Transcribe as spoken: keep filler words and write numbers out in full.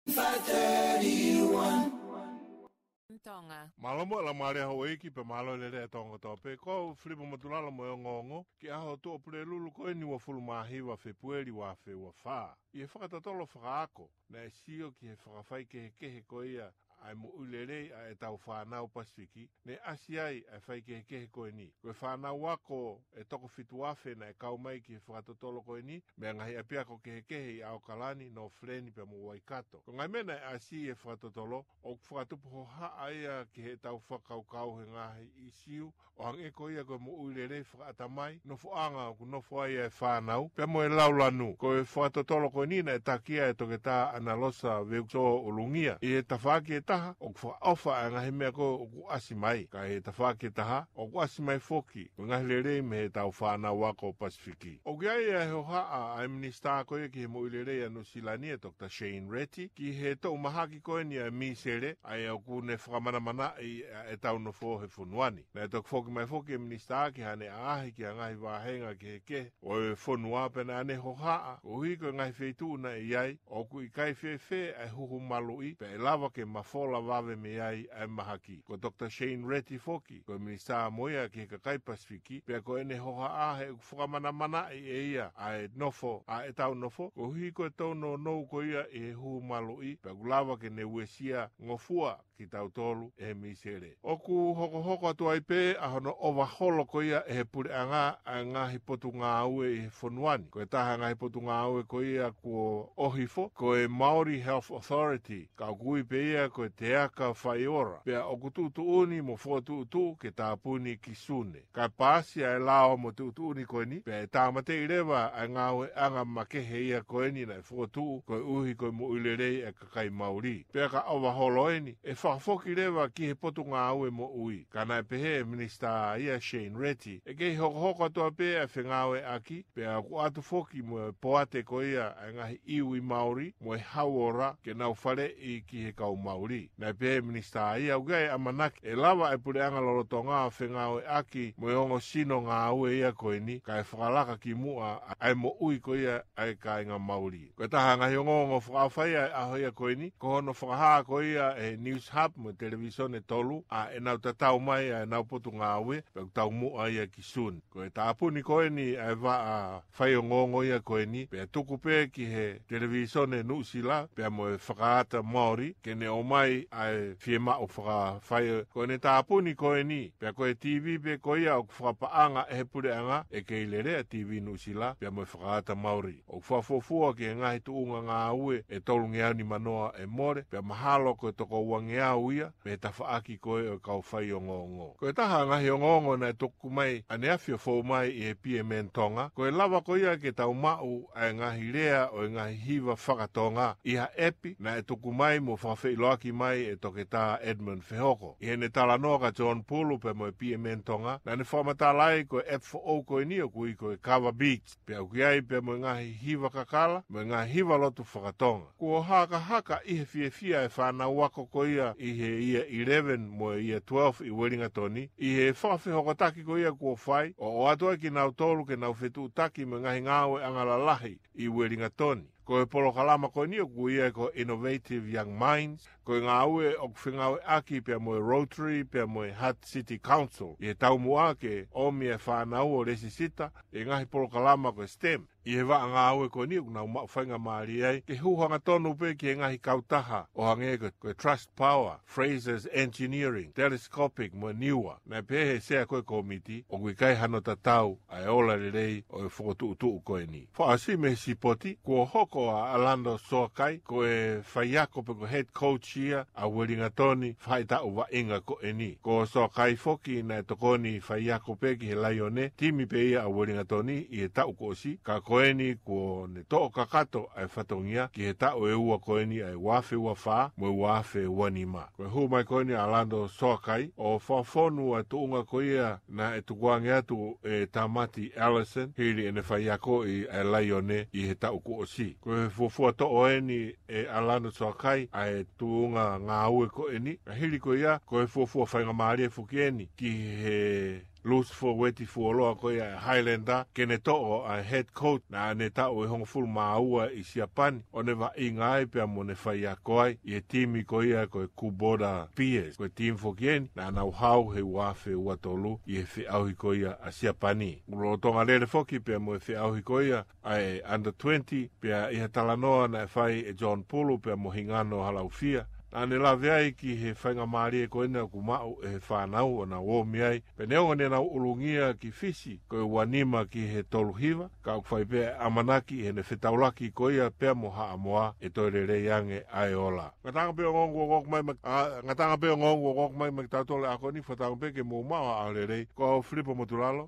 five thirty-one. Tonga. Mālō mo e laumālie houʻeiki pea mālō e lelei ʻa Tonga kotoa pē. Ko au Filipo Motulalo mo e ongoongo ki he ʻaho Tuʻa Pulelulu ko eni uofulu mā hiva Fēpueli ua afe ua fā. ʻI he fakatotolo fakaako, naʻe sio ki he fakafaikehekehe ko ia ʻa e moʻui lelei ʻa ʻetau fānau Pasifiki, ne ʻasi ai ʻa e faikehekehe ko eni. Ko e fānau ako ʻe toko fitu afe naʻe kau mai ki he fakatotolo ko eni, mei he ngaahi ʻapiako kehekehe ʻi ʻAokalani, Northland pea mo Waikato. Ko e ngaahi meʻa naʻe ʻasi ʻi he fakatotolo, ʻoku fakatupu hohaʻa ia ki heʻetau fakakaukau he ngaahi ʻīsiu ʻo hangē ko ia ko e moʻui lelei fakaʻatamai, nofoʻanga ʻoku nofo ai ʻa e fānau, pea mo e laulanu. Ko e fakatotolo ko eni naʻe taki ia ʻe Toketā ʻAnarosa Veukisoa ʻUlungia. ʻI he tafaʻaki ʻe taha, ʻoku fakaʻofa ʻa e ngaahi meʻa ko ē ʻoku ʻasi mai. Ka ʻi he tafaʻaki ʻe taha, ʻoku ʻasi mai foki ko e ngaahi lelei mei heʻetau fānau ako Pasifiki. ʻOku ʻi ai ʻa e hohaʻa ʻa e Minisitā ko ia ki he moʻui lelei ʻa Nuʻusila ni, ʻa Doctor Shane Reti, ki he toʻu mahaki ko eni ʻa e mīsele, ʻa ia ʻoku ne fakamanamanaʻi ʻa ʻetau nofo he fonua ni. Naʻe toki foki mai foki e Minisitā ki haʻane ʻaʻahi ki ha ngaahi vāhenga kehekehe ʻo e fonua, pea naʻa ne hohaʻa, koeʻuhi ko e ngaahi feituʻu naʻe ʻi ai, ʻoku ʻikai fēfē ʻa e huhu maluʻi, pea ʻe lava ke mafola vave mei ai ʻa e mahaki. Ko Doctor Shane Reti foki, ko e Minisitā mo ia ki he kakai Pasifiki, pea ko ʻene hohaʻa he ʻoku fakamanamanaʻi ʻe ia ʻa e nofo, ʻa ʻetau nofo, koeʻuhi ko e tōnounou ko ia ʻi he huhu maluʻi, pea ʻoku lava ke ne uesia ngofua kitautolu ʻe he mīsele. ʻOku hokohoko atu ai pē ʻa hono ʻovaholo ko ia ʻe he puleʻanga ʻa e ngaahi potungāue ʻi he fonua ni. Ko e taha e ngaahi potungāue ko ia kuo ʻohifo, ko e Māori Health Authority, ka ʻoku ui pē ia ko e Te Aka Whaiora. Pea ʻoku tuʻutuʻuni mo fokotuʻutuʻu ke tāpuni ki Sune. Ka paasi ʻa e lao mo e tuʻutuʻuni ko eni, pea ʻe tāmateʻi leva ʻa e ngāueʻanga makehe ia ko eni naʻe fokotuʻu koeʻuhi ko e moʻui lelei ʻa e kakai Māori. Pea ka ʻovaholo eni, ʻe fakafoki leva ki he potungāue moʻui. Ka naʻe pehē ʻe he Minisitā ia Shane Reti, ʻe kei hokohoko atu pē ʻa e fengāueʻaki, pea ʻoku ʻatu foki mo e poate ko ia ʻa e ngaahi iwi Māori mo e hauora ke nau faleʻi ki he kau Māori. Naʻe pehē ʻe he Minisitā ia ʻoku ʻi ai e ʻamanaki ʻe lava ʻa e puleʻanga lolotonga ʻo fengāueʻaki mo e ongo sino ngāue ia ko eni, kae fakalaka ki muʻa ʻa e moʻui ko ia ʻa e kāinga Māori. Ko e taha e ngaahi ongoongo fakaʻofa ia ʻo e ʻaho ia ko eni, ko hono fakahā ko ia ʻe he Newshub mo e Televisone Tolu ʻa ʻenau tatau mai ʻa ʻenau potungāue, pea ʻoku taumuʻa ia ki Sune. Ko e tāpuni ko eni ʻa e vaʻa faiongoongo ia ko eni, pea tuku pē ki he Televisone Nuʻusila, pea mo e Whakaata Māori, ke ne ʻomai ʻa e fiemaʻu fakafai. Ko ʻene tāpuni ko eni, pea ko e TV pē ko ia ʻoku fakapaʻanga ʻe he puleʻanga, ʻe kei lele ʻa e TV Nuʻusila, pea mo e Whakaata Māori. ʻOku fakafuofua ki he ngaahi tuʻunga ngāue ʻe tolungeau nima noa ʻe mole, pea mahalo ko e toko uangeau ia, mei he tafaʻaki ko ē ʻo e kau faiongoongo. Ko e taha e ngaahi ongoongo naʻe tuku mai ʻaneafi ʻo fou mai ʻi he PMN Tonga, ko e lava ko ia ke tau maʻu ʻa e ngaahi lea ʻo e ngaahi hiva fakatonga ʻi ha ʻepi naʻe tuku mai mo fakafeʻiloaki mai ʻe Toketā Edmund Fehoko. ʻI heʻene talanoa kia John Pulu pea mo e PMN Tonga, naʻa ne fakamatala ai ko e ʻepi foʻou ko eni ʻoku ui ko e Kava Beats, pea ʻoku ʻi ai pea mo e ngaahi hiva kakala, mo e ngaahi hiva lotu fakatonga. Kuo hakahaka ʻi he fiefia e fānau ako ko ia ʻi he Year eleven mo e Year twelve ʻi Uelingatoni, ʻi he fakafehokotaki ko ia kuo fai, ʻo ʻoatu ai kinautolu ke nau fetuʻutaki mo e ngaahi ngāueʻanga lalahi ʻi Uelingatoni. Ko e polokalama ko eni ʻoku ui ia ko Innovative Young Minds, ko e ngāue ʻoku fengāueʻaki pea mo e Rotary, pea mo e Hutt City Council, ʻi he taumuʻa ke ʻomi e fānau ʻo lēsisita ʻi he ngaahi polokalama ko e STEM. ʻI he vaʻa ngāue ko eni ʻoku nau maʻu faingamālie ai ke hū hangatonu pē ki he ngaahi kautaha ʻo hangē ko, ko e Trust Power, Fraser's Engineering, Telescopic mo e Niua. Naʻe pehē ʻe he sea ko ē kōmiti, ʻoku ʻikai hano tatau ʻa e ola lelei ʻo e fokotuʻutuʻu ko eni. Fakaʻosi mei he sipoti, kuo hoko ʻa Alando Soakai ko e faiako pe ko e head coach ia ʻa Uelingatoni faʻahitaʻu vaʻinga ko eni. Ko Soakai foki naʻe tokoni faiako pē ki he Laione, timi pē ia ʻa Uelingatoni ʻi he taʻu kuo ʻosi, ka ko eni kuo ne toʻo kakato ʻa e fatongia ki he taʻu ʻe ua ko eni ʻa e ua afe ua fā mo e ua afe ua nima. Ko e hū mai ko eni ʻa Alando Soakai ʻo fakafonu ʻa e tuʻunga ko ia naʻe tukuange atu ʻe Tamati Ellison, hili ʻene faiakoʻi ʻa e Laione ʻi he taʻu kuo ʻosi. Ko e fuofua toʻo eni ʻe Alando Soakai ʻa e tuʻunga ngāue ko eni, ka hili ko ia, ko e fuofua faingamālie foki eni ki he Lusi Fuoeti Fuoloa ko ia ʻa e Highlander, ke ne toʻo ʻa e head coach naʻa ne taʻu ʻe hongofulu mā ua ʻi Siapani, ʻo ne vaʻinga ai pea mo ne faiako ai ʻi he timi ko ia ko e Kubota Bears. Ko e timi foki eni naʻa nau hao he ua afe ua tolu ʻi he feʻauhi ko ia ʻa Siapani. Kuo lolotonga lele foki pea mo e feʻauhi ko ia ʻa e under twenty, pea ʻi ha talanoa naʻe fai ʻe John Pulu pea mo Hingano Halaufia, naʻa ne lave ai ki he faingamālie ko ena ʻoku maʻu ʻe he fānau ʻo nau omi ai, pea neongo ne nau ʻulungia ki Fisi ko e ua nima ki he tolu hiva, ka ʻoku fai pē ʻamanaki heʻene fetaulaki ko ia pea mo Haʻamoa ʻe toe lelei ange ʻa e ola. Ngataʻanga pē ongoongo ʻoku ʻoku mai ma-, ʻa, ngataʻanga pē ongoongo ʻoku ʻoku mai maʻa kitautolu he ʻaho ni, fakatauange pē ke mou maʻu ha ʻaho lelei. Ko au Filipo Motulalo.